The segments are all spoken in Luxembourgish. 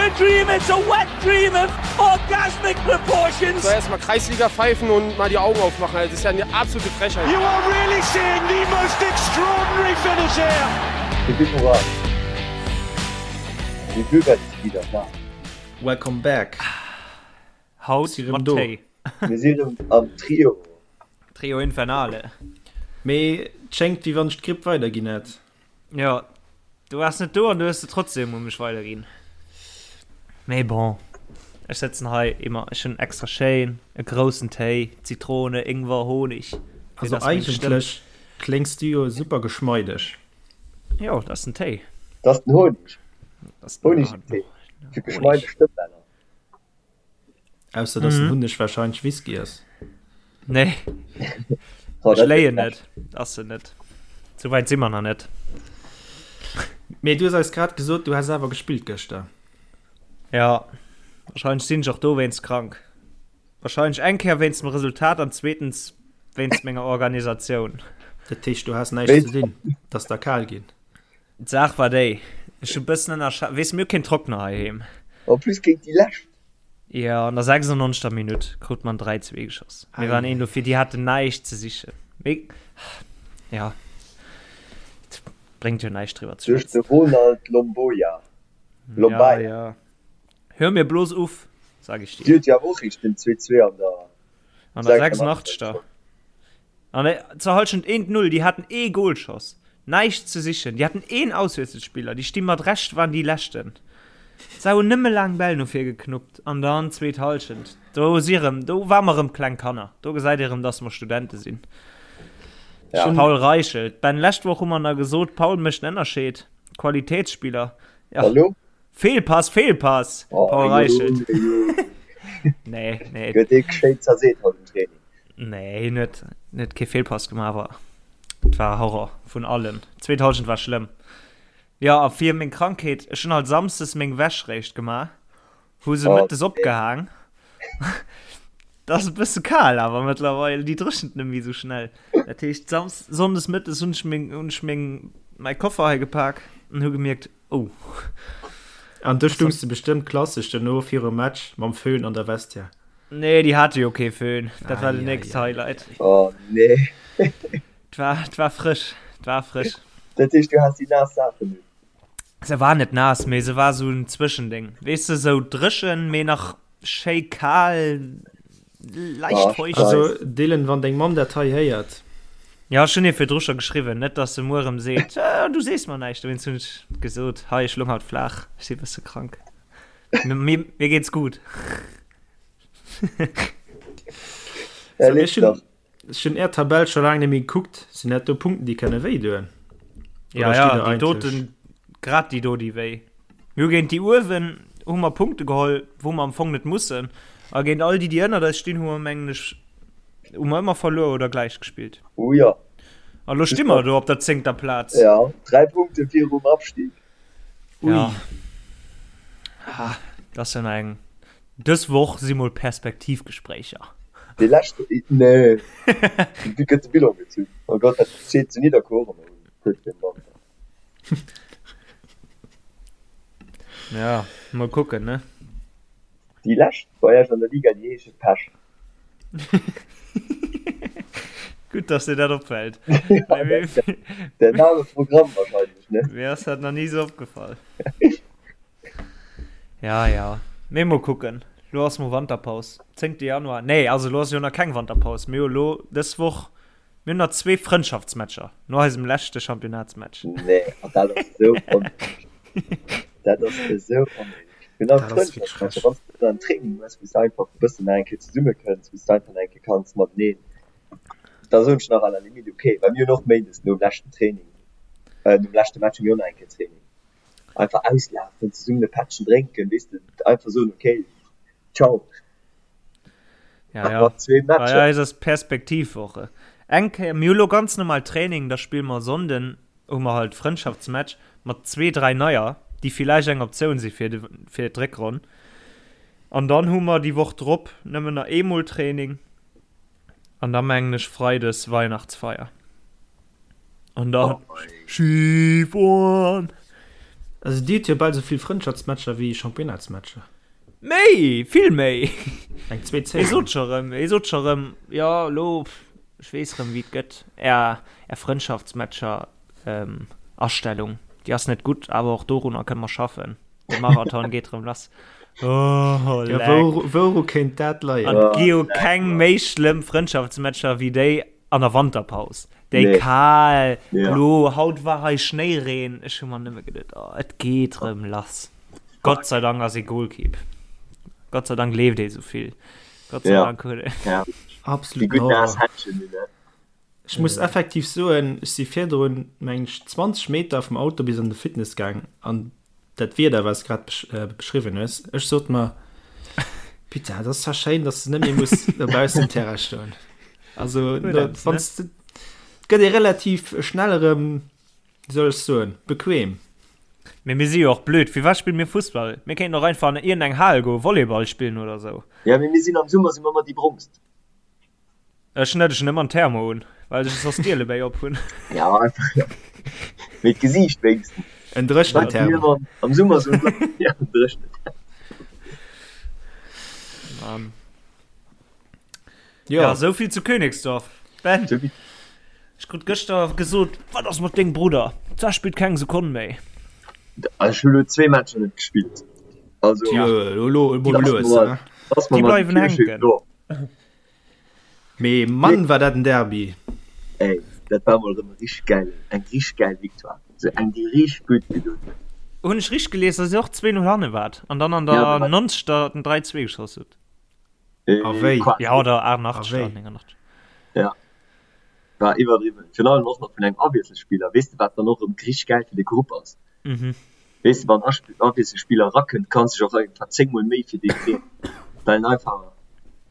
a dream, it's a wet dream of orgasmic proportions. So erstmal Kreisliga pfeifen und mal die Augen aufmachen. Das ist ja eine absolute Frechheit. You are really seeing the most extraordinary finish here. Hipp hipp hurra! Die Bürger ist wieder da. Welcome back. Haut Si rëm mat do. Téi. Mir sinn erëm am Trio. Trio Infernale. Mee et schéngt wéi wann ech d'Gripp weiderginn hätt. Jo, du waars net do an du hues se trotzdem u mech weiderginn. Mee bon, ech sëtzen hei immer, ech hunn extra schéin e groussen Téi, Zitrone, Ingwer, Honig. Fir Also dass meng Stëmm. eigentlech kléngs du jo super geschmeideg. Jo, dat ass den Téi. Dat ass den Honig. Dat ass den Honig im Téi. Fir geschmeideg Stëmmbänner. Ausser dass den Hunneg wahrscheinlech Whisky ass. Nee. Ech léien net. Ass en net. Sou wäit si mer nach net. Mee du hues eis grad gesot, du häss awer gespillt gëschter. Ja, wahrscheinlech sinn ech och dowéinst krank. Wahrscheinlech eng Kéier wéinst dem Resultat an zweetens wéinst menger Organisatioun. Dat heescht, du has näischt ze dinn, et ass der kal ginn. D'Saach war déi, ech hu bëssen ënnerschat, weess, mir hu keen Trockner heiheem. En plus géint déi Lescht. Jo, an der 96. Minutt krut mer en 3, 2 geschoss. Mir waren een dofir, déi haten näischt ze sichen. Mee, ja, et bréngt jo näischt driwwer ze Duerch de schwätzen. Ronald Lomboia. Ja, Lombaia. ja. Hör mir bloß uff, sag ich Déi dir. huet jo awer och eréischt den 2, 2 an der An der 86. 86. An zur Halschent eent Null, déi haten ee Golschoss, näischt ze sichen, déi haten een Auswiesselspiller, déi sti mat Recht, waren déi leschten, se hunn nëmme laang Bäll no vir geknuppt an dann zweet Halschent, do si rëm, do ware mer rëm kleng Kanner, do gesäit ee rëm, dass mer Studente sinn. Ja. Paul Reichelt, Ben, lescht Woch hu mer nach gesot, Paul mécht en Ënnerscheed, Qualitätsspieler, ja. Hallo? Fehlpass, Fehlpass, Oh, Paul Reichelt. Junge, Nee, nee. Gëtt ee geschéit zerseet haut im Training. Nee, hien huet net kee Fehlpass gemaach, awer et war Horror vun allen. D'zweet Halschent war schlëmm. Jo, a fir meng Krankheet, ech hunn halt samsdes meng Wäsch réischt gemaach, hu se Oh, mëttes nee. opgehaang. Dat ass e bësse kal awer mëttlerweil, déi dréchent net méi esou schnell. Dat heescht, sams sonndes mëttes hunn ech meng, hunn ech meng, mäi Koffer hei gepak an hu gemierkt, oh. An du stungs de bestëmmt klassesch duerno virum Match mam Föhn an der Vestiaire. Nee, déi hate jo kee Föhn. Dat war den nächst Highlight. Oh nee. Et war, et war frësch. Et war frësch. Dat heescht, du has déi naass Saachen un? Se war net naass, mee se war sou en Zwëschendéng. Weess de, sou dréchen, mee nach schéi kal, leicht Oh, feucht. Also Dylan, wann deng Mamm dat hei héiert. Ja, ech hunn hir virdru scho geschriwwen, net dass se muer erëm seet, Du sees mer näischt. Dowéinst hunn ech gesot, Hei, ech lung haut flaach, ech si e bësse krank. Mir, mir geht's gut. Ja, So, lebt ech hunn, doch. ech hunn är Tabell scho laang net méi gekuckt. Sinn dat do Punkten, déi kënne wéi doen? Ja, Oder ja, steet der déi eigentlech? doten, grad déi do, déi wéi. Mir hu géint déi uewen hu mer Punkte geholl, wou mer am Fong net mussen. A géint all déi, déi ënnert eis stinn, hu mer, mengen ech, hu mer ëmmer verluer oder gläich gespillt. Oh ja. A lo sti mer do op der zéngter Plaz. Ja, 3 Punkte virum Abstieg. Ui. Ja. Ah, dat ass jo nach eng. Dës Woch si mol Perspektivgespréicher. Dee leschte, nee, du gëtt de Bilan gezunn. Oh Gott, dat steet zu Nidderkuer och ëmmer un kuerz virum Wanter. Ja, mol kucken, ne? Déi lescht bei Iech an der Liga, déi heesche Pech. Gutt, dass dir dat opfällt. Ja, der Name Programm wahrscheinlech, ne? Mir ass dat nach ni sou opgefall. Ja, ja. Mee mol kucken. Lo ass mol Wanterpaus. 10. Januar. Nee, also lo ass jo nach keng Wanterpaus. Mir hu lo dës Woch, mir hunn nach zwee Frëndschaftsmatcher no eisem leschte Championnatsmatch. Nee, an dat ass esou onnéideg. Dat ass esou onnéideg. Genau, Dat ass wierklech Frëndschaftsmatcher, frech. wann s de dann Training hues, wou s de einfach e bëssen nach eng Kéier zesummekënns, wou s de einfach nach eng Kéier kanns mateneen, da soen ech nach à la limite okay, well mir hunn och méindes nom leschten Training, nom leschte Match hu mir och nach eng Kéier Training. Einfach auslafen, zesummen e Pättchen drénken, weess de, einfach soen, okay, ciao. Ja, ja. Mat zwee Bei Matcher. eis ass Perspektivwoche. Eng Kéier, mir hu lo ganz normal Training, da spille mer Sonnden, hu mer halt Frëndschaftsmatch mat zwee, dräi Neier, déi villäicht eng Optioun si fir de, fir d'Réckronn. An dann hu mer déi Woch drop nëmmen nach eemol Training an da mengen ech Freides Weihnachtsfeier. An dann Oh mei. Skifueren! Also dir hutt jo bal esou vill Frëndschaftsmatcher wéi Championnatsmatcher. Méi, vill méi. Eng zweet Saison. Hie sot scho rëm, hie sot scho rëm, jo elo, ech weess rëm wéi et gëtt, är, är Frëndschaftsmatcher Astellung, déi ass net gutt, awer och dorunner kënne mer schaffen. De Marathon geet rëm lass. Oh, ja, wou, wouru kéint dat leien? An et gi jo keng méi schlëmm Frëndschaftsmatcher wéi déi an der Wanterpaus. Déi nee. kal, ja. lo, haut war hei Schnéireen. Ech hu mer nëmme geduet, oh, et geet rëm lass. Gott sei Dank ass ee Goalkeep. Gott sei Dank leeft ee souvill. Gott sei ja. Dank huet e. Ja. Absolut. Déi gutt naass Händchen, ne? Ech muss effektiv soen, ech si virdrun, meng ech, 20 Meter vum Auto bis an de Fitness gaang an dat Wieder, wat s de grad beschriwwen hues, ech sot mer, Putain, dat ass zwar schéin, dass de net méi muss dobaussen um Terrain stoen. Also, wann s de, et gëtt ee relativ schnell erëm, wéi soll ech soen, bequem. Mee mir si jo och blöd, firwat spille mir Fussball? Mir kéinten och einfach an iergendeng Hal goen, Volleyball spillen oder sou. Ja, mee mir sinn am Summer si mer ëmmer déi Brongst. Ech net, ech hunn ëmmer en Thermo un, well ech soss d'Ielebéi op hunn. Ja, einfach, ja. Mee d'Gesiicht wéinstens. En dréchenen Thermo. Am Summer sou, ja, en dréchenen Thermo. Mann. Jo. Ja, souvill zu Königsdorf. Ben, ech krut gëschter gesot, wat ass mat dengem Brudder? D'Sa spillt keng Sekonn méi. Ech hu lo zwee Matcher net gespillt. Also, ja. Lo, lo, mol lues, ne? Déi bleiwen hänken. Mee Mann war dat en Derby! Ey, dat war mol rem e richteg gäilen, eng richteg gäil Victoire, sou eng déi richteg gutt gedoen huet. Hunn ech richteg gelies, dass dir och 2, 0 hanne waart an dann an der 90. den 3, 2 geschoss hutt? A wéi? Ja, oder 88. A wéi? 89. Ja, war iwwerdriwwen. Virun allem och nach vun engem Awiesselspiller. Weess de wat dann och rem richteg gäil fir de Grupp ass? Weess de, wann Awiesselspiller erakënnt, kanns dech och einfach 10 mol méi fir dee freeën, well en einfach,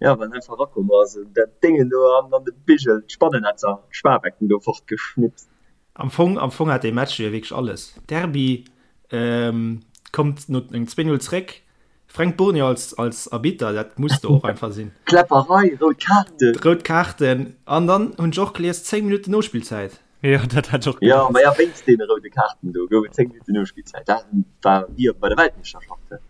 jo, well en einfach erakomm ass an dat Déngen do an an de Bigel, d'Spannennetzer, d'Sparbecken do fortgeschnipst. Am Fong, am Fong hat dee Match jo wierklech alles. Derby kommt no engem 2-0 zréck, Fränk Bournier als, als Arbitter, dat muss do och einfach sinn. Kläpperei, rout Kaarten. Rout Kaarten an dann hunn ech och gelies 10 Minutten Nospillzäit. Jo, dat hat ech och Jo, ma ja, wéinst deene roude Kaarten do gouf et 10 Minutten Nospillzäit. Dat war wéi bei der Weltmeeschterschaft. Dat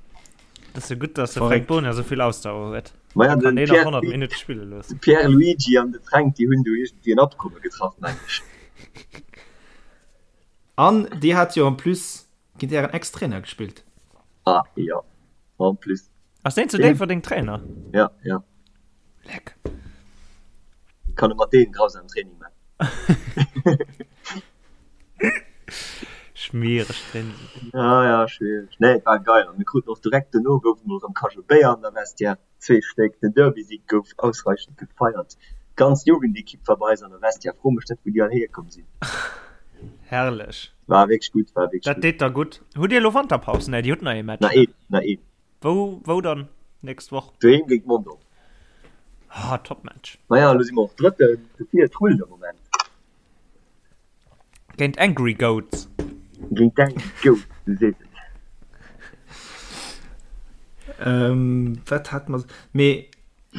ass jo gutt, dass de Fränk Bournier esou vill Ausdauer huet. Ma ja, Kann den deen nach Pierre, 100 Minutte spille loossen. de Pierre Luigi an de Fränk, déi hunn do iergendwéi en Abkomme getraff, meng ech. An dir hat jo en plus géint ären Ex-Trainer gespillt. Ah, jo, en plus. Ass deen zu Déifferdeng Trainer? Ja, ja. Leck. Kann e mat deem grausam Training man. Schmiereg Training. Ja, ja, schwiereg. Nee, et war geil. An mir kruten och direkt dono gouf et mol erëm Cajot Béier an der Vestiaire. Zwee Stéck. Den Derby-Sig gouf ausreichend gefeiert. D'ganz Jugendekipp war bei eis an der Vestiaire. Fro mech net, wou déi all hierkomm sinn. Herrlech. War wierklech gutt, war wierklech Dat gutt. deet der gutt. Hutt Dir elo Wanterpaus? Nee, Dir hutt nach ee Match, Nach ne? een, nach een. Wou, wou dann nächst Woch? Doheem géint Mondorf. Ah, Top-Match. Maja, elo si mer och Drëtten, dofir et rullt am Moment. Géint Angry Goats. Géint d'Angry Goats, du sees et. Ähm, wat hat mer. Mee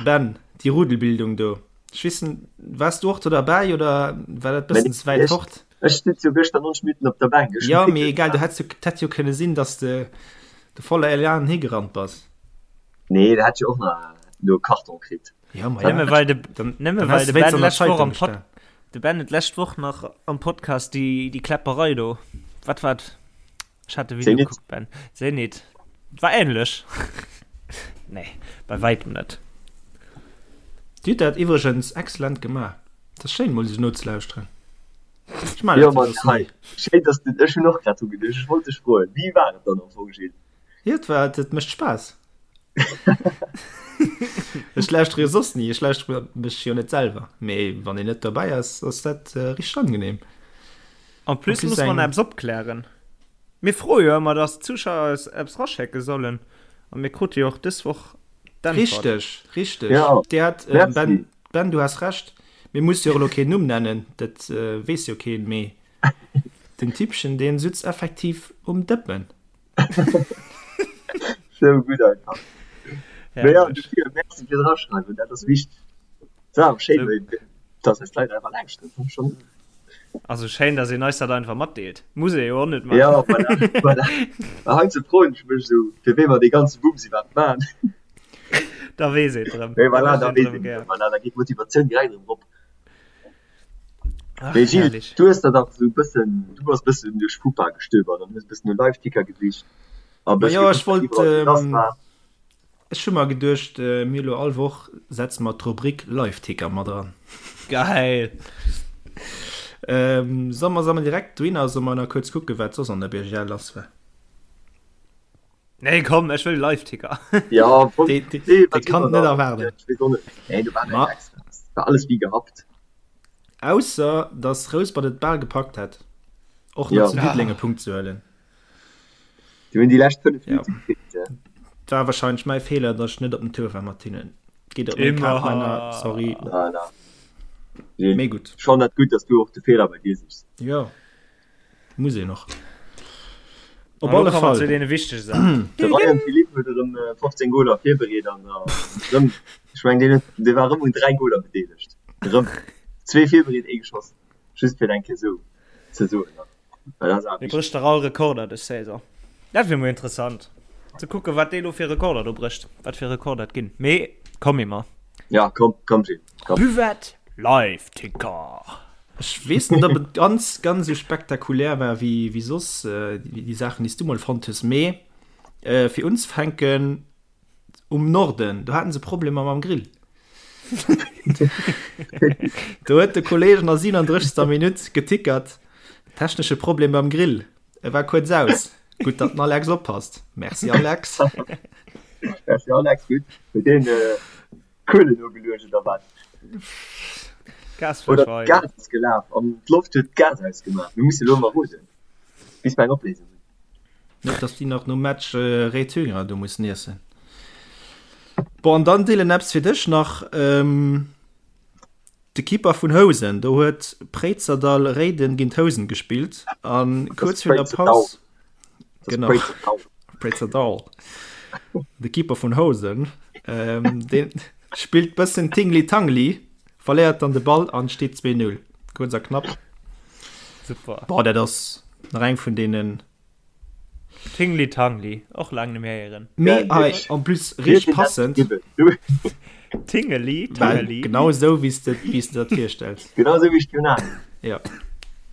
Ben, déi Rudelbildung do, ech weess net, waars du och do derbäi oder war dat bëssen ze wäit fort? Ech sutz jo gëschter 90 Minutten op der Bänk. Ech Jo, mee egal, du hätt jo, et hätt jo kënne sinn, datt s de de voller Elan higerannt bass. Nee, da hätt ech jo och nach do e Karton kritt. Ja, ma ja. Nëmme well de, Dann, nëmme dann well häss de de wéinst Ben an der lescht Woch Zeitung am Pod, gestan. de Ben huet lescht Woch nach am Podcast déi, déi Kläpperei do. Wat war et? Ech hat de Video Zenit. gekuckt, Ben. Zenit. War ähnlech. Nee, bei wäitem net. Dir hutt dat iwwregens excellent gemaach. Et ass schéin mol esou nozelauschteren. Ech maachen Jo, dat jo Mann, soss hei. ni. Schéin, dass de, ech hunn och grad dru geduecht, ech wollt dech froen, wéi war et dann am Fong, Gilles? Jo, et war, et mécht Spaass. Ech lauschtere jo soss ni, ech lauschtere mech jo net selwer, mee wann een net dobäi ass, ass dat richteg angenehm. En plus muss mer nach eppes opklären. Mir froe jo ëmmer, dass d'Zuschauer eis eppes raschécke sollen a mir krute jo och dës Woch d'Äntwert. Richteg, richteg. Dir hat, Ben, Ben, du has Recht. Mir musse jo och elo keen Numm nennen, dat weess jo keen, mee den Typchen, dee sutz effektiv um Dëppen. Sou gutt einfach. Mee ja, dofir Merci fir d'Eraschreiwen, dat ass wichteg. Et ass awer schéin, dass eis d'Leit einfach lauschteren, fand ech schonn. Also schéin, dass een eis dat einfach matdeelt. Muss ee jo och net maachen. Ja, voilà, voilà. Mä heiansdo froen ech mech esou, fir wee mer dee ganze Bums iwwerhaapt maachen. Da weess een et erëm. Mee voilà, da weess een et erëm. Voilà, da geet d'Motivatioun direkt erëm erop. Ach, Mee Gilles, herrlich. du hues der dach esou e bëssen, du bass e bëssen duerch FUPA gestöbert an hues e bëssen no Live-Ticker gesicht a Ma bësse jo, ech gekuckt, wat wollt, iwwerall esou lass war. ech hu mer geduecht, mir elo all Woch setze mer d'Rubrik Live-Ticker mat eran. Geil! Solle mer, solle mer direkt dohinner, solle mer nach kuerz kucken, wat soss an der BGL lass war? Nee, komm, ech wëll Live-Ticker. Ja, voll. Dee, dee, Nee, dee wat kann immer net da. erwaarden. Ich weess och net. Nee, do war Ma näischt extra. War alles wéi gehabt. Ausser, dass Rouspert et bal gepackt hätt, och nach Ja. zu Diddeleng e Punkt ze huelen. Déi hunn déi lescht 5 Ja. Minutte gefeelt, ja. War wahrscheinlech mäi Feeler, dass ech net op den Tour war mat hinnen. Geet op meng Kap, Männer, sorry. Na, na. Gilles, Mee gutt. Schon dat gutt, dass du och de Feeler bei dir sichs. Jo. Muss een och. Op Op alle alle Fall. Zu deene wichtege Saachen. De Ryan Philippe huet erëm 15 Goler virbereet an erëm, ech mengen deen huet, dee war erëm un 3 Goler bedeelegt. Erëm zwee virbereet, ee geschoss. Just fir et eng Kéier esou ze soen. Well dat ass awer Dee wichteg. brécht dach all Rekorder dës Saison. Dat wier mol interessant ze kucken, wat dee lo fir Rekorder do brécht, wat fir Rekorder et ginn. Mee komm Emma. Ja, komm, komm Gilles, komm. Buvette Live Ticker. Ech weess net, ob et ganz, ganz esou spektakulär war wéi, wéi soss déi Saachen, déi s du mol fonnt hues. Mee fir unzefänken, um Norden, do haten se Problemer mam Grill. Do huet de Kolleeg an der 37. Minutt getickert, technesche Problem beim Grill. E war kuerz aus. Gutt, datt den Alex oppasst. Merci Alex. Merci Alex, gutt. Huet deen Kuelen ugeluecht oder wat? Gas Oder d'Gas ass gelaf an d'Loft huet d'Gas ausgemaach. Mir musse lo emmer roden, bis mer eng Opléisung hunn. Net dass déi nach nom Match Rétünger do mussen iessen. Bon, an dann Dylan, eppes fir dech nach. De Keeper vun Housen, do huet Préizerdall Réiden géint Housen gespillt an kuerz virun der Paus. Genau. Préizerdall. De Keeper vun Housen, ähm, deen spillt bëssen Tingli-Tangli, verléiert dann de Ball an steet 2-0. Kuerz a knapp. Super. Boah, dat ass nach eng vun deenen. Tingli Tangli, och laang net méi héieren. Mee hei en plus richteg passend. Tingeli Tangeli. Genau esou wéi s de wéi s de dat virstells. Genau esou wéi ech d'Jonas. Ja.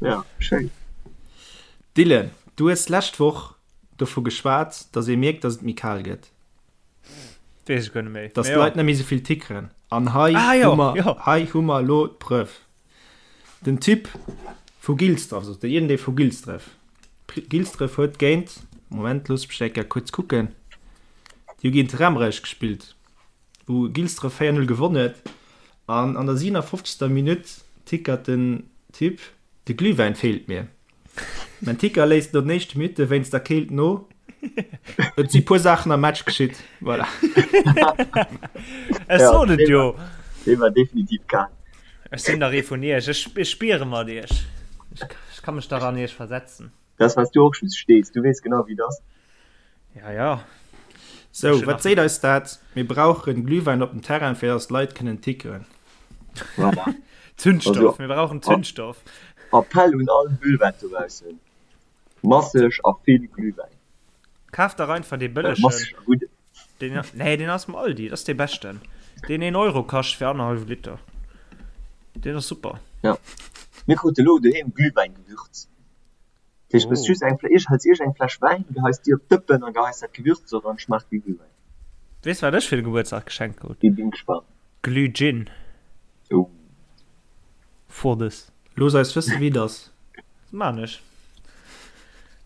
Ja, schéin. Dylan, du hues d'lescht Woch dovu geschwat, datt ee mierkt, datt et méi kal gëtt. Weess ech guer net méi. Datt d'Leit net méi esou vill tickeren. An hei Ah jo, hu mer, jo. hei hu mer elo d'Preuve. Den Typ vu Gilsdref, also iergendee vu Gilsdref, Gilsdref huet géint, Moment, loosst mech eng Kéier kuerz kucken, déi hu géint Remrech gespillt, wou Gilsdref 4, 0 gewonn huet an an der 57. Minutt tickert den Typ, De Glühwäin feelt mir. Mein Ticker léisst no den éischte Minutte wéinst der Keelt no. Et si puer Saachen am Match geschitt. Voilà. Ech sot et jo. Dee war definitiv kal. Ech sinn dach ee vun iech. Ech, ech spiere mat iech. Ech, ech ka mech dach an iech versetzen. Dat ass, well s du och just stees. Du weess genau, wéi et ass. Ja, ja. Sou, wat seet eis dat? Mir brauchen Glühwäin op dem Terrain, fir dass d'Leit kënnen tickeren. Voilà. Zündstoff, Also, mir brauchen Zündstoff. Appell un all Buvette dobaussen, masseg a vill Glühwäin. Kaf dach einfach dee Äh, bëllegen. masseg a gudden. Deen, nee, deen ass am Aldi, dat ass dee beschten. Deen 1 Euro kascht fir annerhallwe Liter. Deen ass super. Ja. Mir krute lo doheem Glühwäingewürz. Dat heescht, du hues just eng, hëls iech eng Fläsch Wäin, geheis déi op d'Dëppen a geheis dat Gewürz eran, schmaacht wéi Glühwäin. Weess wat ech fir de Gebuertsdag geschenkt krut? Bin gespannt. Glühgin. Oh. For this. Looss eis wëssen wéi et ass. Dat maan ech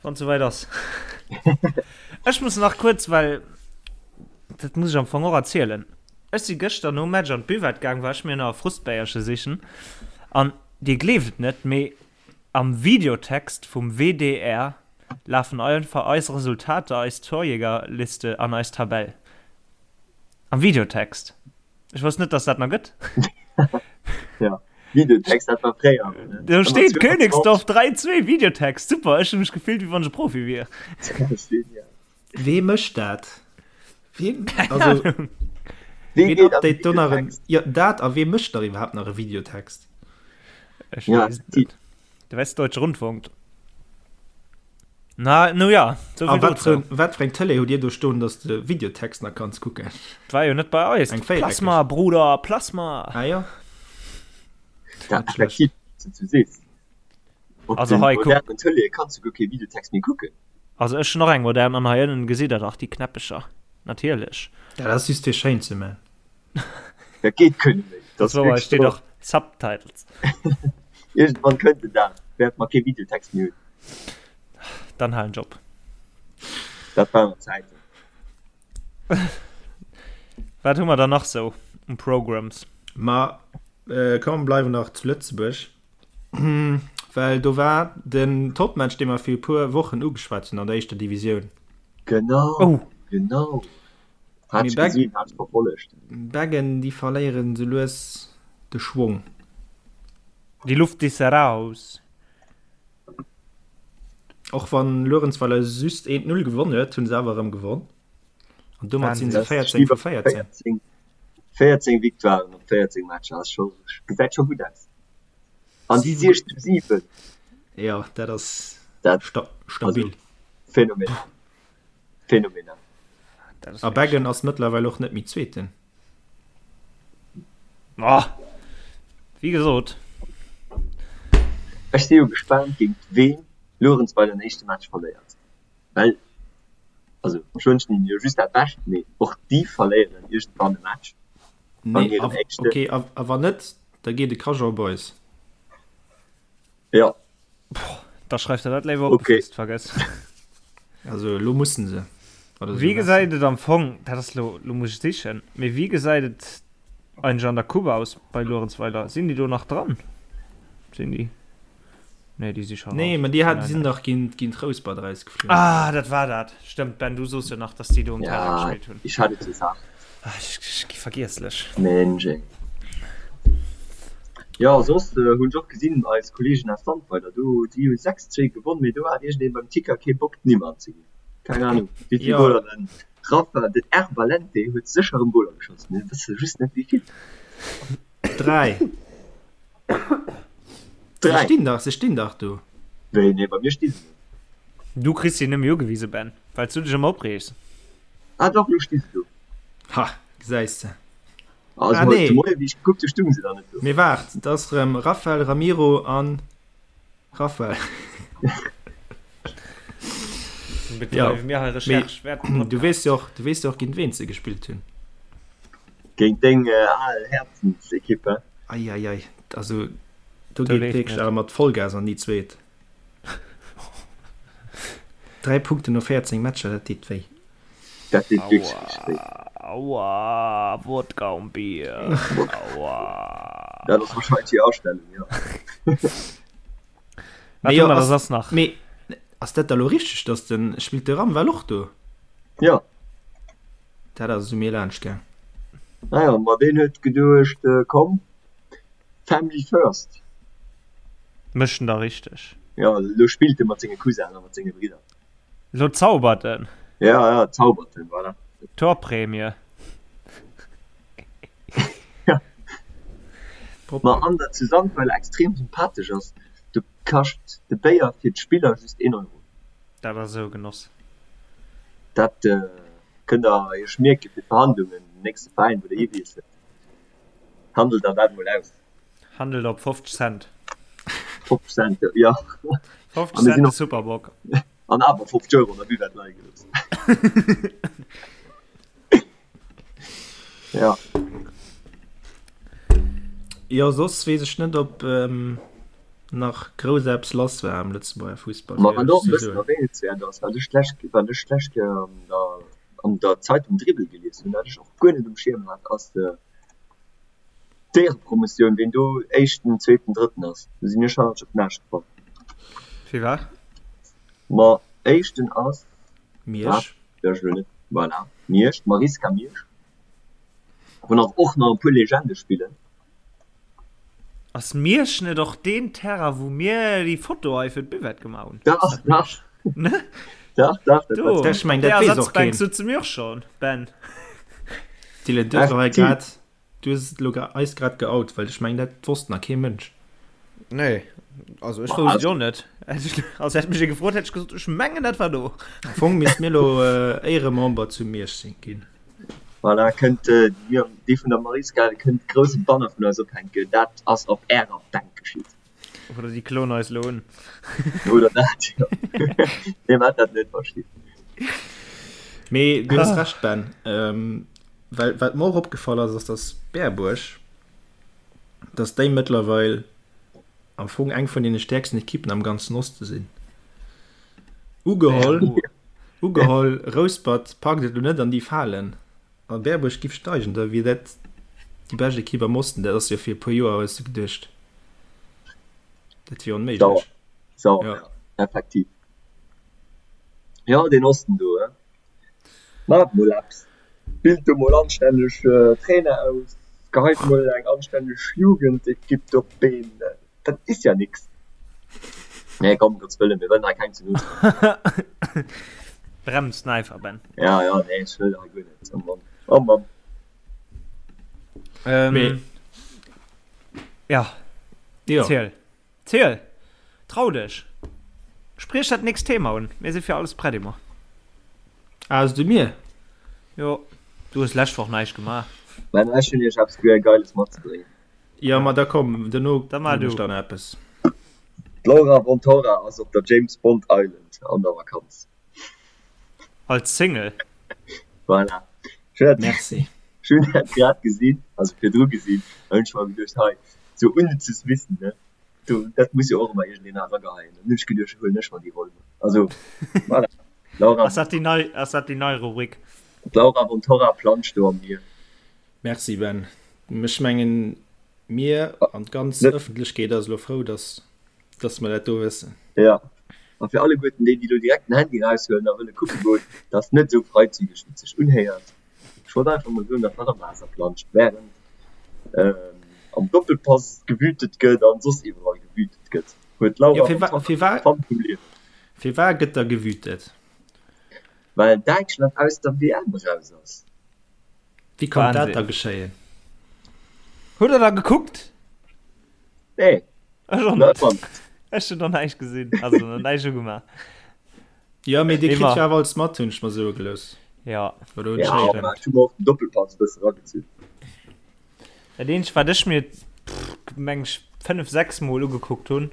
wann et souwäit ass. Ech muss nach kuerz, well dat muss ech am Fong och erzielen. Ech si gëschter nom Match an d'Buvette gaang, war ech mir nach e Frustbéierche sichen an dir gleeft et net, mee Am Videotext vum WDR lafen einfach eis Resultater, eis Torjägerliste an eis Tabell. Am Videotext. Ech wosst net, dass dat nach gëtt. Ja, Videotext, dat war fréier. Do steet Königsdorf 3, 2, Videotext. Super, ech hu mech gefillt, wéi wann ech e Profi wier. Wee mécht dat? Wien, also, ween update do nach en, jo, dat a wee mécht nach iwwerhaapt nach e Videotext? Ech Ja, weess et net. De Westdeutsche Rundfunk. Na, no ja, so A wat fir, wat fir eng Tëlee hutt Dir do stoen, dass de Videotext nach kanns kucken? War jo net bei eis. Eng véiereckeg. Plasma, Bruder, Plasma! Ah jo. Dat effektiv, wéi du sees. Op Also den hei, kuck. modernen Tëleeë kanns du guer kee Videotext méi kucken. Also ech hunn och eng modern an hei ënnen gesitt der dach déi Knäppecher. Natierlech. Dat ass just fir schéin ze man. Dat geet guer net méi. Dat ass wouer, hei steet och Subtitles. Iergendwann kënnt den Dag, wäerte mer kee Videotext méi hunn. Dann halen ech op. Dat waren nach Zäiten. Wat hu mer dann nach sou um Programs? Ma komm, bleiwen nach zu Lëtzebuerg, well do war den Topmatch, dee mer fir e puer Wochen ugeschwat hunn an der éischter Divisioun. Genau, Oh! genau. Hat Mee ech Beg gesinn, hat ech verfollegt. Beggen, déi verléieren sou lues de Schwong. Die Luft ist raus. Och wann Luerenzweiler just 1, 0 gewonn huet, hunn se awer erëm gewonn. An domat sinn se 14 vu 14. 14 Victoiren op 14 Matcher ass scho, gesäit scho gutt aus. An déi 6 zu 7. Jo, dat ass Dat, stabil. also phänomenal. Phänomenal. A Beggen ass mëttlerweil och net méi Zweeten. Oh, wéi gesot. Ech si jo gespaant géint ween Luerenzweiler den éischte Match verléiert, well also ech wënschen hinnen jo just dat Bescht, mee och déi verléieren iergendwann e Match an hirem éischten. Ok, a wann net, da geet e Cajun Boys. Jo. Da schreif der dat léiwer op, okay. bevor s d'vergëss. Also elo mussen se. Wéi gesäit et am Fong, dat ass lo, lo muss ech sichen, mee wéi gesäit et eigentlech an der Coupe aus bei Luerenzweiler? Sinn déi do nach dran? Sinn déi? Nee, déi si scho Nee, raus. mä déi hat, Nein, sinn nein. dach géint, géint Rouspert erausgeflunn. Ah, dat war dat. Stëmmt, Ben, du soos jo nach, dass déi do um Terrain Ja, gespillt hunn. ich hat et gesagt. Ah, ech, ech gi vergiesslech. Mensch ey. Jo, soss hunn ech och gesinn, eis Kollegen aus Sandweiler do, déi hu 6, 2 gewonn, mee do hat iergendeen beim Ticker kee Bock d'Nimm anzeginn. Keng Ahnung wéi vill Jo. Goler den Rafa, den R. Valente huet sécher erëm Goler geschoss, mir wësse just net wéi vill. 3. Se 3. stinn dach, se stinn dach do. Wéi, nee, bei mir sti se net. Du kriss si nëmme ugewise, Ben, well s du dech ëmmer opreegs. Ah dach, lo sti se do. Ha, gesäis de. Also Ah, nee. nee. Moie wéi ech gekuckt hu stung se da net do. Mee waart, et ass rëm Rafael, Ramiro an Rafael. Ja, mir hei Recherche mee du weess jo och, du weess jo och géint ween se gespillt hunn. Géint deng al Häerzensekipp, he? Ei, ei, ei, also do Do geet leeft wierklech net. awer mat Vollgas an déi zweet. 3 Punkten no 14 Matcher, dat deet wéi. Dat deet wierklech richteg wéi. Aua, Wodka und Bier, aua. Dat ass wahrscheinlech déi Astellung, jo. Wat Mee hu jo, mer da ass, soss nach? mee ass dat da lo richteg, dass den, spillt de Ramwell och do? Jo. Dat ass esou mir laanscht gaang. Naja, ma deen huet geduecht, komm, Family first. Mécht en da richteg. Jo, elo spillt e mat senge Cousinen a mat senge Bridder. Elo zaubert en. Ja, ja, zaubert en, voilà. Torprämie. Ja. Ma an der zu Sandweiler extrem sympathesch ass, do kascht de Béier fir d'Spiller just een Euro. Dat ass esou e Genoss. Dat kënnt der iech mierke fir d'Verhandlungen, den nächste Veräin wou der hiwiesselt. Handelt der dat mol aus. Handelt op 50 Cent. 50 Cent, jo. 50 Cent de Superbock. An awer 50 Euro an der Buvette leie gelooss. Ja. Jo, soss weess ech net, ob nach grouss eppes lass war am Lëtzebuerger Fussball. Ma wat och e bëssen erwähnenswäert ass, wat ech d'lescht, wat ech d'lescht Kéier an der, an der Zeitung Dribbel gelies hunn, wat ech och guer net um Schierm hat, ass d'Éierepromotioun, ween do Éischten, Zweeten, Drëtten ass. Do sinn ech hannertsch op den Aascht gefall. Firwat? Ma Éischten ass Miersch. Ech elo net, voilà, Miersch, d'Mariska Miersch, wou nach och nach e puer Legende spillen. Ass Miersch net och deen Terrain wou mir déi Foto hei fir d'Buvette gemaach hunn? Dach, dach. Ne? Dach, dach, dat Do, Ech meng, op där dat weess och Ersatzbänk keen. sutze mir och schon, Ben. Dylan, du hues elo hei grad, du hues elo eis grad geout, well ech meng, dat wosst nach kee Mënsch. Nee. Also ech wousst et jo net. Also hätt mech ee gefrot, hätt ech gesot, ech mengen dat war do. Am Fong misst mir elo Éieremember zu Miersch sinn ginn. Voilà, kënnt déi vun der Mariska, kënnt grousse Banner vun eis ophänken, dat ass op ärer Bänk geschitt. Oder déi kloen eis elo un. Oder dat, jo. Nee, maacht dat net, Baschi. Mee du hues Recht, Ben. Well wat mer och opgefall ass, ass dass Berbuerg, dass déi mëttlerweil am Fong eng vun deene stäerksten Ekippen am ganzen Oste sinn. Ugeholl, ugeholl, Rouspert packt et elo net an déi Falen a Berbuerg giff steigen, da wier dat déi bescht Ekipp am Osten. Dat ass jo fir e puer Joer, hues de geduecht, dat wier onméiglech. Sauer, sauer, ja, effektiv. Jo, deen Osten do, he. Maacht mol eppes, bilt do mol anstänneg Trainer aus, geheit mol eng anstänneg Jugendekipp do op d'Been, dat is ja nix. Nee komm, Gottes Wëllen, mir wëllen hei keng ze no treden. Brems den Äifer, Ben. Ja, ja, nee, ech wëll hei guer net, oh Mann, oh Mann. Ähm, ja, ziel. Ziel! Trau dech! Spriech dat nächst Thema un, mir si fir alles prett Emma. Ah, du mir? Jo, du hues lescht Woch näischt gemaach. Ben, ech hunn iech eppes guer Geiles matzebréngen. Jo, ma da komm, duerno hunn ech dann eppes. D'Laura Wontorra ass op der James Bond Island an der Vakanz. Als Single? Voilà. Merci. Ech hunn dat grad gesinn, also virdru gesinn, an hunn ech mer geduecht, hei, sou unnützes Wissen, ne, do, dat muss jo och ëmmer iergendeen erageheien. An hunn ech geduecht, huelen ech mer déi Roll. Also, voilà. Laura. Ass dat déi nei, ass dat déi nei Rubrik? D'Laura von Torra planscht do am Mier. Merci Ben. Ech mengen, mir an d'ganz Ëffentlechkeet ass elo frou, dass Dass mer dat do wëssen. Jo, a fir alleguerten déi, déi elo direkt den Handy eraushuelen a wëlle kucke goen, dat ass net esou freizügeg, wéi et sech unhéiert. Ech wollt einfach mol soen, datt hatt am Waasser planscht, wärend am Doppelpass gewütet gëtt an soss iwwerall gewütet gëtt, huet d'Laura Fann vum Liewen. Firwat gëtt da gewütet? Well Däitschland aus der WM eraus ass. Wéi konnt dat da geschéien? Hutt der da gekuckt? Nee. Ech och net. Ech hunn nach näischt gesinn, also nach näischt ugemaach. Jo, mee Dir kritt jo awer alles mat, hunn ech mer soe gelooss. Ja. Oder hunn ech héieren? Ja, ech hu mer och den Doppelpass e bësse eragezunn. Dat eenzegt, wat ech mir, meng ech, 5, 6 Mol ugekuckt hunn,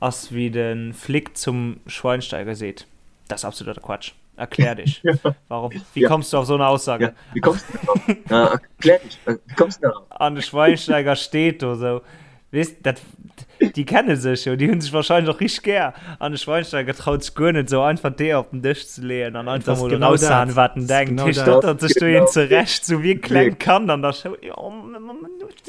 ass wéi de Flick zum Schweinsteiger seet, Das ist absoluter Quatsch. Erklär dich. Warum? Wie ja. kommst du auf so eine Aussage? Ja, wie kommst du darauf? Ja, erklär dich. Äh, wie kommst du darauf? An de Schweinsteiger steht do so. Weißt, dat, die kennen sech jo, die hunn sech wahrscheinlich och richtig gär. An de Schweinsteiger traut sech guer net so einfach d'Eeër op den Dësch ze leeën an einfach Das mol genau raushauen, dat. wat en Das denkt. genau Hie dat. stottert sech do Genau. een zurecht, sou wéi e klengt Kand an der Schoul. Jo,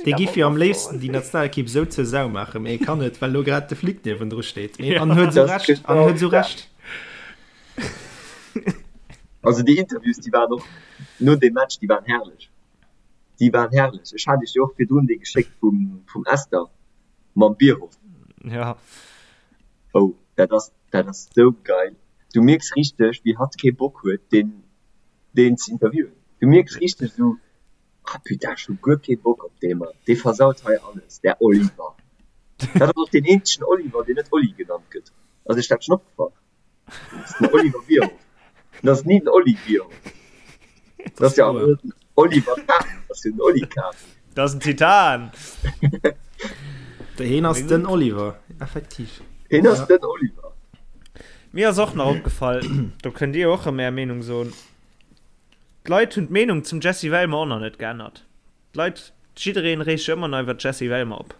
Dee giff jo am léifsten déi Nationalekipp sou zur Sau maachen, mee e kann net, well lo grad de Flick niewendru steet. Mee an huet sou Das Recht, an genau huet sou dat. Recht. Also déi Interviews, déi waren och no deem Match, déi waren herrlech. Déi waren herrlech. Ech hat iech jo och virdrun dee geschéckt vum, vum Esther mam Bierhoff. Ja. Oh, dat ass, dat ass sou geil. Du mierks richteg, wéi hatt kee Bock huet, deen, deen ze interviewen. Du mierks richteg esou, Ah putain, ech hu guer kee Bock op dee Mann, dee versaut hei alles, där Oliver. Dat ass och deen eenzegen Oliver, deen net Oli genannt gëtt. Ass iech dat schonn opgefall? Dat ass den Oliver Bierhoff. Dat ass ni den Oli Bierhoff. Dat ass jo awer net den Oliver Kahn, dat ass jo den Oli Kahn. Dat ass en Titan! Heen ass den Oliver, effektiv. Heen ass den Oliver. Mir ass och nach opgefall, do kënnt Dir och erëm Är Meenung soen, D'Leit hunn d'Meenung zum Jessy Wellmer och nach net geännert. D'Leit, jiddereen reegt sech ëmmer nach iwwer d'Jessy Wellmer op.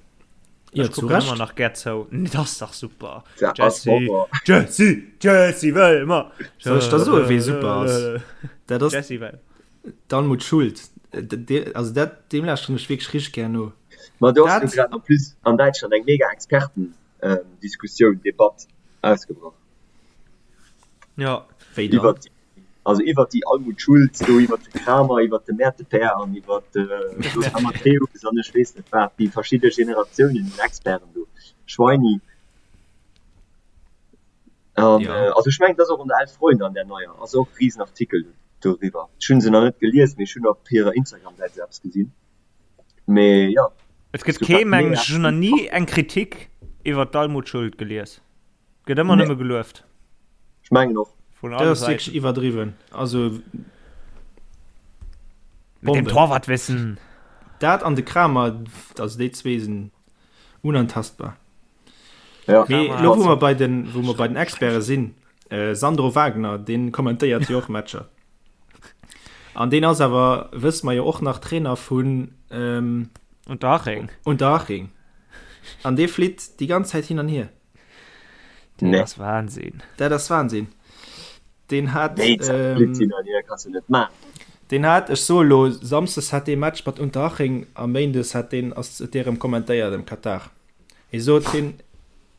Jo, Ech zu kucken ëmmer Recht. nach gär zou. Dat ass dach super. Dat ass Jessy, Horror. Jessy, Jessy Wellmer. Soll ech der soen, wee super ass? Dat ass Jessy Wellmer. d'Almut Schuld. Also dat, deem lauschteren ech wierklech richteg gär no. Ma do ass jo Dat. grad en plus an Däitschland eng mega Expertendiskussioun, Debatt ausgebrach. Ja. Wéi dann? Iwwert Also iwwert déi Almut Schulz do, iwwert de Kramer, iwwert de Mäertepäer an iwwert de Lothar Matthäus an ech weess net wat, déi verschidde Generatiounen un Experten do, Schweini. An Ja. also ech mengen, et ass och an der Elf Freunde, an där neier, ass och e Risenartikel doriwwer. Ech hunn se nach net gelies, mee ech hunn op hirer Instagram-Säit esou eppes gesinn. Mee jo, Et gëtt es gouf kee, dat mengen mega ech, ech hunn nach ni eng Kritik. Iwwer d'Almut Schuld gelies. Gëtt ëmmer nëmme gelueft. Ech mengen och. Vun Dat alle ass wierklech Säiten. iwwerdriwwen. Also Mit dem Bombe. Torwartwissen. Dat an de Kramer, also déi zwee sinn unantastbar. Ja. Mee Kramer elo wou ass mer bei den, wou mer bei den Experte sinn, äh, Sandro Wagner, deen kommentéiert jo och Matcher. An deen ass awer, wësse mer jo och nach, Trainer vun ähm, Unterhaching. Unterhaching. An dee flitt déi ganz Zäit hin an hier. Dat Nee. ass Wahnsinn. Dat ass Wahnsinn. Deen hat, Nee, ähm, flitt hin an hier kannst du net maachen. deen hat, ech soe lo, Samsdes hat dee Match mat Unterhaching a Méindes hat deen, ass dee rëm kommentéiert am Katar. Hie sot, hien,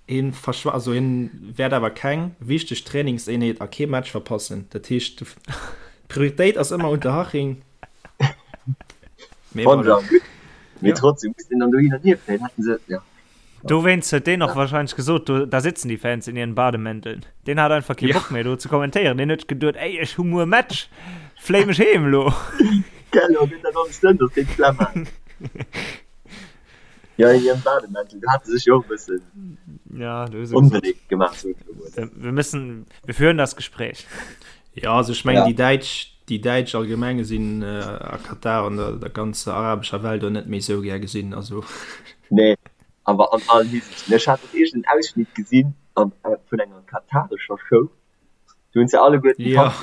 hien verschwa, also hien wäert awer keng wichteg Trainingseenheet a kee Match verpassen. Dat heescht, d'Prioritéit ass ëmmer Unterhaching. Mee Fand voilà. ech awer gutt. Mee Ja. trotzdem muss den dann do hin an hier fléien. Hätten se, ja. Dowéinst huet deen och wahrscheinlech gesot, do, da sitzen die Fans in ihren Bademänteln. Deen hat einfach kee Ja. Bock méi do ze kommentéieren. Deen huet geduet, ey, ech hu muer Match, fléi mech heem elo. Gell, lo gëtt dat alles dënn, dass deen d'Flemm hat. Ja, in ihrem Bademäntel, do hat se sech jo och e bëssen Ja, do hu se gesot, onbeléift gemaach, sot ech elo mol. wir wir müssen, wir führen das Gespräch. Ja, also ech mengen Ja. déi Däitsch, déi Däitsch allgemeng sinn a Katar an der der ganzer arabescher Welt och net méi esou gär gesinn, also. Nee, awer an allen Hisiichten. Ech hat och iergend en Ausschnitt gesinn an vun enger katarescher Show, do hunn se alleguerten Ja. d'Hand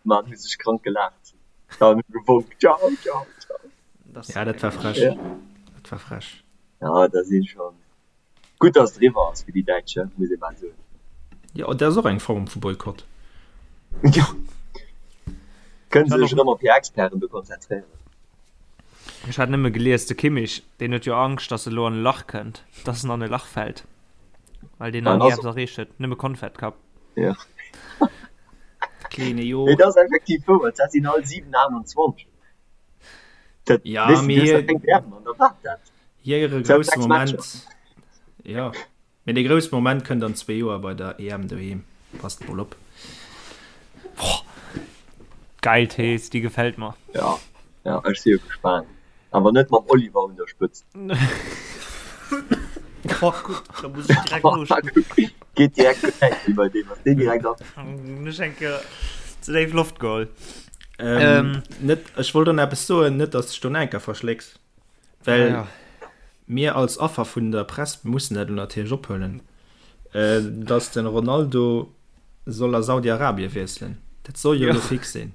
gemaach an hu sech krank gelaacht an hu gewonk, Ciao, ciao, ciao. Ja, dat war frech. Ja. Dat war frech. Ja, da si schon. Gutt, datt et eriwwer ass fir déi Däitsch, muss ee bal soen. Jo, dat ass och eng Form vu Boykott. Jo. Kënne se sech erëm op hir Experten do konzentréieren. Ech hat nëmme gelies, de Kimmich, deen huet jo Angscht, datt e lo an e Lach kënnt, datt en an e Lach fält, well deen nach ni eppes erreecht huet, nëmme Konfett Cup. Jo. Kleene Jo. Mee dat ass effektiv wouer, dat sinn all 7, 28. Dat, Ja, weess de, mee du hues hie. nach keng WM an da waart dat. Hire grousse Moment, jo, mee dee grousse Moment kënnt an zwee Joer bei der EM doheem. Passt mol op. Boah, geil Thees, déi gefält mer. Ja, ja, ech si jo gespaant. Awer net mam Oliver un der Spëtzt. Oh, gutt, da muss ech direkt noschloen. Geet direkt gutt wäit wéi bei deem, ass deen direkt an. Hunn ech eng Kéier ze déif Loft geholl. Ähm, net, ech wollt och nach eppes soen, net dass de dech do nach eng Kéier verschlécks. Well ja, ja. mir als Affer vun der Press mussen dat natierlech ophuelen, äh, dass den Ronaldo soll a Saudi-Arabien wiesselen. Dat soll jo ja. fix sinn.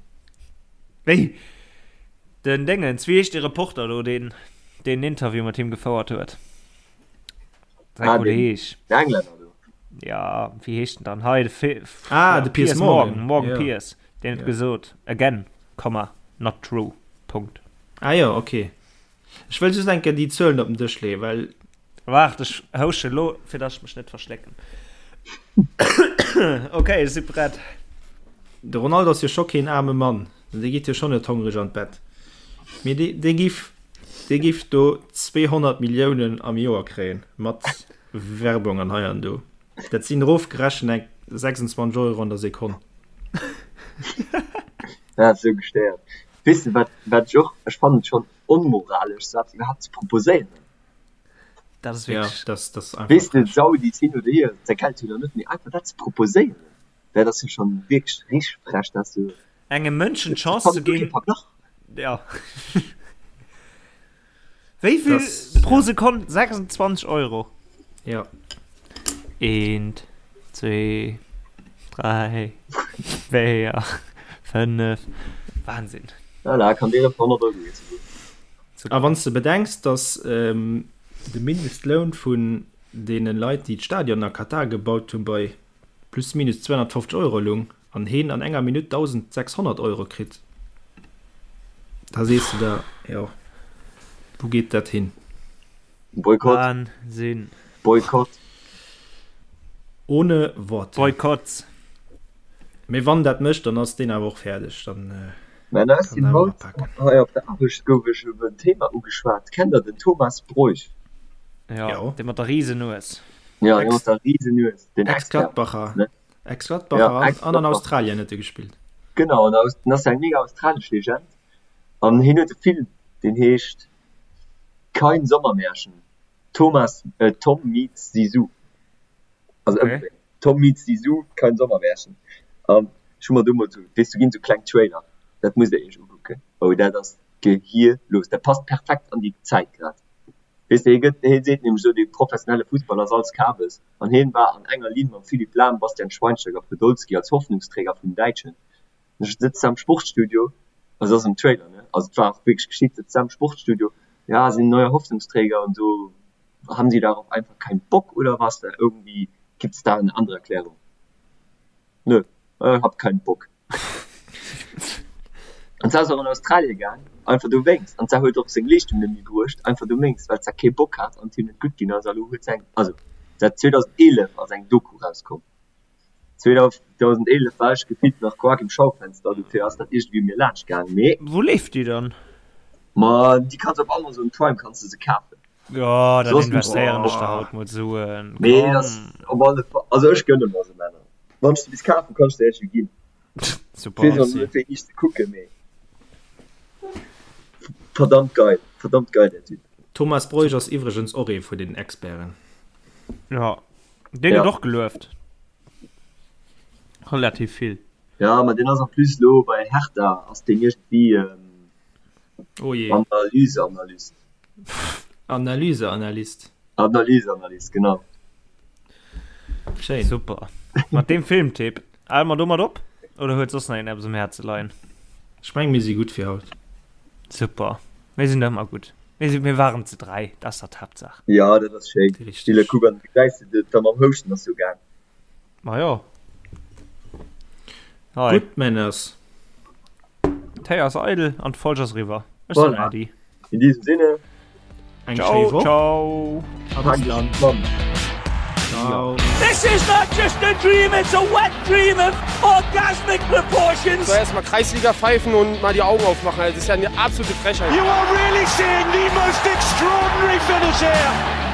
Wéi? Den Dingens, wéi heescht de Reporter do, deen den Interview mat him gefouert huet? Säi ah, Kolleg. Den Englänner do. Ja, wéi heescht den dann? Hei, de Fi ah, de Piers, Piers Morgan. Morgan, Morgan ja. Piers. Den huet ja. gesot, again, Komma, not true. Punkt. Ah jo, ok. Ech wëll just eng Kéier déi Zuelen op den Dësch leeën, well. Waart, ech housche lo, fir dass ech mech net verschlécken. Ok, ech si prett. De Ronaldo ass jo scho keen aarme Mann, dee geet jo schonn net hongreg an d'Bett, mee dee, dee giff, dee giff do 200 Milliounen am Joer kréien, mat Werbung an hei an do. Dat sinn erofgerechent eng 26 Euro an der Sekonn. Dat ass esou gestéiert. Weess de wat, wat ech och, ech fannen et schonn onmoralesch sou eppes iwwerhaapt ze proposéieren. Dat ass wierklech. Ja, dat, dat ass einfach Weess de, frech. Saudis hin oder hier, säi Geld hunn der net, mee einfach dat ze proposéieren, dat ass jo schonn wierklech richteg frech, dat ass jo, Engem Mënschen ech d'Chance ze fannen guer kee ginn, Verglach. ja. Wéi vill Das, pro ja. Sekonn? 26 Euro. Ja. Eent, zwee, dräi, véier, fënnef. Wahnsinn. Voilà, kann dir op 100 Euro ginn souguer. A wann s de bedenks, dass de Mindestloun vun deene Leit, déi d'Stadionen a Katar gebaut hunn, bei plus minus 250 Euro lung an heen an enger Minutt 1.600 Euro kritt, da sees de der, jo, wou geet dat hin? Boykott. Wahnsinn. Boykott. Ohne Worte. Boykotts. Mee wann dat mécht, dann ass deen awer och fäerdeg, dann Mä da kann sinn en awer haut apaken. hei op der Aarbecht gouf ech op en Thema ugeschwat. Kennt der den Thomas Broich? Jo, Jo. dee mat der Risenues. Jo, dee mat der Risenues, den Expert, Ex-Gladbacher. ne? Ex-Gladbacher Ja, an, an an Ex-Gladbacher. Australien huet e gespillt. Genau, an aus, den ass eng mega australesch Legend an hien huet e Film, deen heescht Kein Sommermärchen, Thomas, äh, Tom meets Zizou. Also okay. Tom meets Zizou, kein Sommermärchen. An ech hu mer do mol sou, weess du ginn sou kleng Trailer, dat musst der iech ukucken. Oh dat ass gehierlos, dat passt perfekt an déi Zäit grad. Weess de, hie gëtt, hie seet nämlech esou, dee professionelle Fussball ass alles Kabes. An hien war an enger Linn mam Philipp Lahm, Bastian Schweinsteiger, Podolski als Hoffnungsträger vun den Däitschen. An ech sëtzt am Sportstudio, also ass am Trailer, ne, also et war och wierklech geschitt, sëtzt am Sportstudio, ja, sind neue Hoffnungsträger und so, haben sie darauf einfach keinen Bock oder was, irgendwie gibt's da eine andere Erklärung? Nö, äh, hab keinen Bock. An se ass och an Australie gaang, einfach dowéinst. An se huet och seng Leeschtung net méi bruecht, einfach dowéinst, well se kee Bock hat an et him net gutt ginn ass. A lo huet se eng, also se hat 2011 ass eng Doku rauskomm. 2011 war ech gefillt nach quak im Schaufenster, dofir ass dat iergendwéi u mir laanscht gaang. Mee. Wou leeft déi dann? Ma déi kanns op Amazon Prime kanns de se kafen. Jo, dann investéieren ech der haut mol Suen. Mee ass op alle Fall, also ech gënne mer se, Männer. Wann ech se bis kafen, kann ech se iech jo ginn. Super, merci. Fir iech ze kucken, mee verdammt geil, verdammt geil der Typ. Thomas Broich ass iwwregens och ee vun den Experten. Jo, deen gëtt och gelueft. Relativ vill. Jo, ma deen ass en plus lo bei Hertha, ass deen iergendwéi Oh je. Analyseanalyst. Analyseanalyst. Analyseanalyst, genau. Schéin. Super. Mat deem Filmtipp hale mer domat op oder huet soss nach een eppes um Häerze leien? Ech meng mir si gutt fir haut. Super. Mir sinn ëmmer gutt. Mir si mir waren ze 3, dat ass dach d'Haaptsaach. Jo, dat ass schéin. Stille Richteg. Kuck an du gesäis de da mam Houschten ass jo gaang. Ma jo. Hei. Gutt Männers. D'Héi ass eidel an d'Folg ass eriwwer. Ech soen Voilà. Äddi. In diesem Sinne. Eng Ciao, schéi Woch. ciao. A bis dann. Ciao. This is not just a dream, it's a wet dream of orgasmic proportions. So erstmal Kreisliga pfeifen und mal die Augen aufmachen. Also, das ist ja eine absolute Frechheit. You are really seeing the most extraordinary finish here.